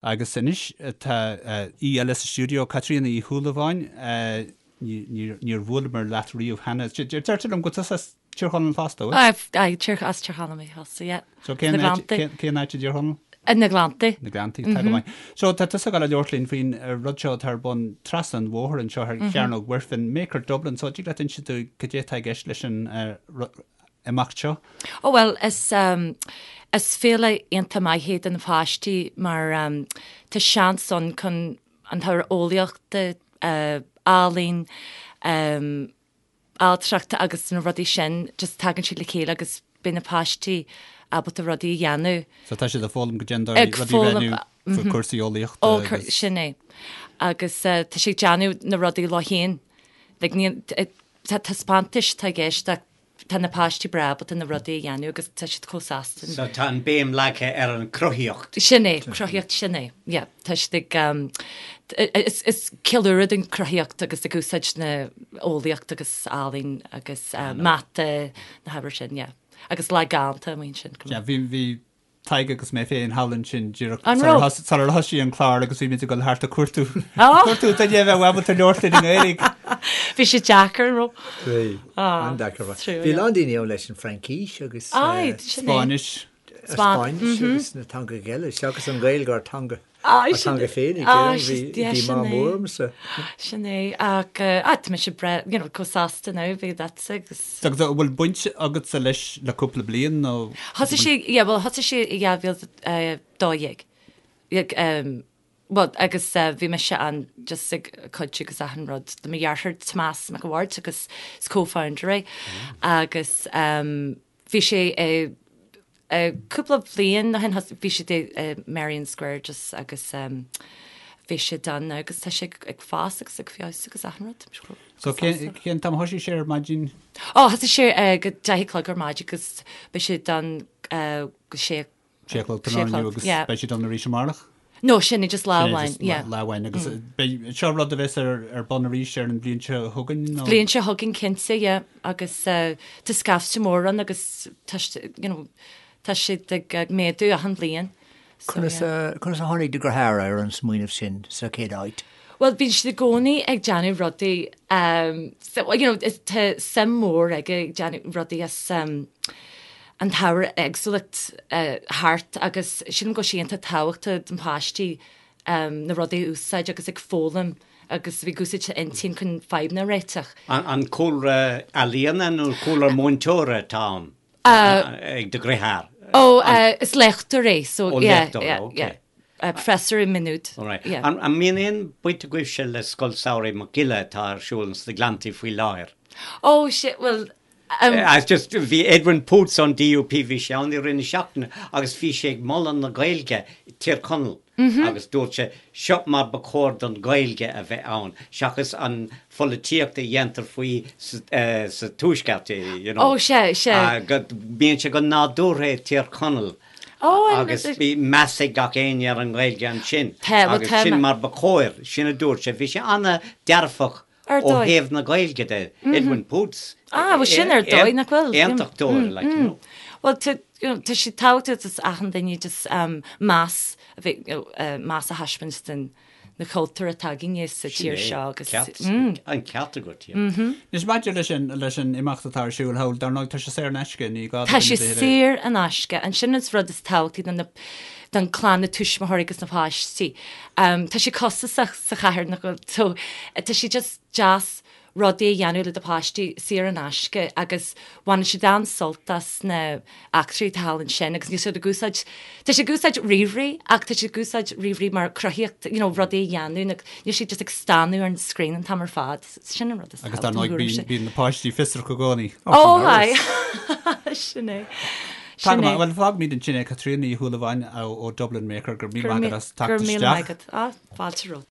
Agus anois tá aoi eile sa stiúideo, Caitríona Uí Shúilleabháin. Níor bhuaileamar leat riamh cheana. Deirtear liom go bhfuil tusa as Tír Chonaill fosta, an bhfuil? Aye, as Tír Chonaill mé fosta, yeah. So cén áit i dTír Chonaill? Na Gleanntaí. Na Gleanntaí, tá go maith. So tá tusa ag dul a labhairt linn faoin rud seo atá ar bun trasna an bhóthair anseo ar Chearnóg Mhuirfean, Maker Dublin. So dtig leat inse dúinn cad é atá i gceist leis an imeacht seo? Ó bhuel, is is féile iontach maith é do na páistí mar tá seans ann chun an t-ábhar eolaíochta, ealaín, ailtireachta agus na rudaí sin, just tagann siad le chéile agus beidh na páistí ábalta rudaí a dhéanamh. So tá siad ag foghlaim goidé an dóigh rudaí a bhreithniú faoi cúrsaí eolaíochta Ó, agus. sin é. Agus tá siad ag déanamh na rudaí leo féin. Like ní, tá taispeántais atá i gceist ach tá na páistí breá ábalta na rudaí a dhéanamh agus tá siad chomh sásta. So tá an béim leagtha ar an cruthaíocht. Sin é, cruthaíocht, sin é. Yeah, tá siad ag, is, is ceiliúradh don cruthaíocht agus ag úsáid na eolaíocht agus ealaín agus mata, na hábhair sin, yeah. Agus lá galánta amuigh ansin. Yeah, bhí, bhí Tadhg agus mé féin thall ansin díreach An raibh? sular thosaigh an clár agus bhí muid ag dul thart ag cuartú cuartú duine a bheadh ábalta labhairt linn i nGaeilge. Bhí sé deacair, an raibh? Bhí, an-deacair. Bhí a lán daoine ann leis an Fraincis agus Aye, sin é. Spáinnis. Spáinnis agus na teangacha eile, seachas an Ghaeilge ár teanga. Ár teanga féinig, bhí díomá mór ormsa. Sin é, ach tá mise breá, you know, chomh sásta now, bhí that's agus. Agus an bhfuil baint agatsa leis le cúpla bliain nó? Thosaigh sé, yeah, bhuel thosaigh sé i 2012. Bhuel, agus bhí mise ann just ag cuidiú agus achan rud. Le mo dheartháir Tomás Mac a' Bhaird agus is co-founder é agus bhí sé i Cúpla bliain ó shin bhí siad i Merrion Square just agus bhí siad ann agus tá sé ag fás agus ag feabhsú agus achan rud. So cén t-am a thosaigh sé ar maidin? Ó thosaigh sé ag 10 a chlog ar maidin agus beidh siad ann go sé sé a chlog tráthnóna inniu agus beidh siad ann arís amárach? No, sin é just lá amháin, yeah. Lá amháin agus beidh seo rud a bheas ar ar bun arís ar an bhliain seo chugainn nó? Bliain seo chugainn cinnte, yeah, agus tá scaifte mór ann agus tá you know tá siad ag méadú achan bhliain. So, Conas yeah. conas a tháinig do dheartháir ar an smaoineamh sin sa chéad áit? Bhuel, bíonn siad i gcónaí ag déanamh rudaí, um, so, you know, is, tá suim mhór aige ag déanamh rudaí as um, an t-ábhar éagsúlacht thart agus sílim go bhfuil sé iontach tábhachtach don pháistí na rudaí a úsáid agus ag foghlaim agus a bheith ag úsáid intinn chun fadhbanna a réiteach. An cúlra ealaíona nó cúlra múinteora atá ann ag do dheartháir? Ó, is léachtóir é, so yeah, yeah, yeah. Professor i Maynooth. All right. An mbíonn aon bhaint agaibhse le Scoil Samhraidh Mac Giolla atá ar siúl sna Gleanntaí faoi láthair? Ó, bhuel, It's just, bhí Edwin Poots ón DUP, bhí sé ann i rith na seachtaine agus bhí sé ag moladh na Gaeilge i Tír Chonaill agus dúirt sé, seo mar ba chóir don Ghaeilge a bheith ann seachas an pholaitíocht a dhéantar faoi sa Tuaisceart, you know. Ó, sea, sea. Go mbíonn sé go nádúrtha i Tír Chonaill agus bhí meas ag gach éinne ar an nGaeilge ansin agus sin mar ba chóir, sin a dúirt sé. Bhí sé an-dearfach Ar Ó dóigh. thaobh na Gaeilge de, Edwin Poots. Ah, bhuel sin ar dóigh, nach bhfuil? Aontachtóir, like, you know. Bhuel, tá, you know, tá sé tábhachtach do achan duine just um, meas a bheith, you know, uh, meas a thaispeáint don na cultúr atá againne sa tír seo agus Ceart, mm. an ceart agat, yeah. Mm-hmm. Anois maidir leis an, leis an imeacht atá ar siúl thall, dar ndóigh tá sé saor in aisce, ní gá do Tá sé duine ar bith a- saor in aisce. An sin an rud is tábhachtaí don na don clann, na tuismitheoirí agus na páistí. Tá sé costasach sa chathair nach bhfuil so tá sé just deas rudaí a dhéanamh le do pháistí saor in aisce agus baineann siad an-sult as na eachtraí atá thall ansin agus níl siad ag úsáid tá siad ag úsáid ríomhairí ach tá siad ag úsáid ríomhairí mar cruthaíocht you know rudaí a dhéanamh nó níl siad just ag stánadh ar an screen an t-am ar fad. Sin an rud is Agus dar ndóigh bíonn bíonn na páistí fiosrach i gcónaí. Ó aye sin é. Tá go maith, bhuel fágfaimid ansin é Caitríona Ní Shúilleabháin ó Dublin Maker, go raibh míle maith agat as teacht isteach. Go raibh míle maith agat. Ah, fáilte romhat.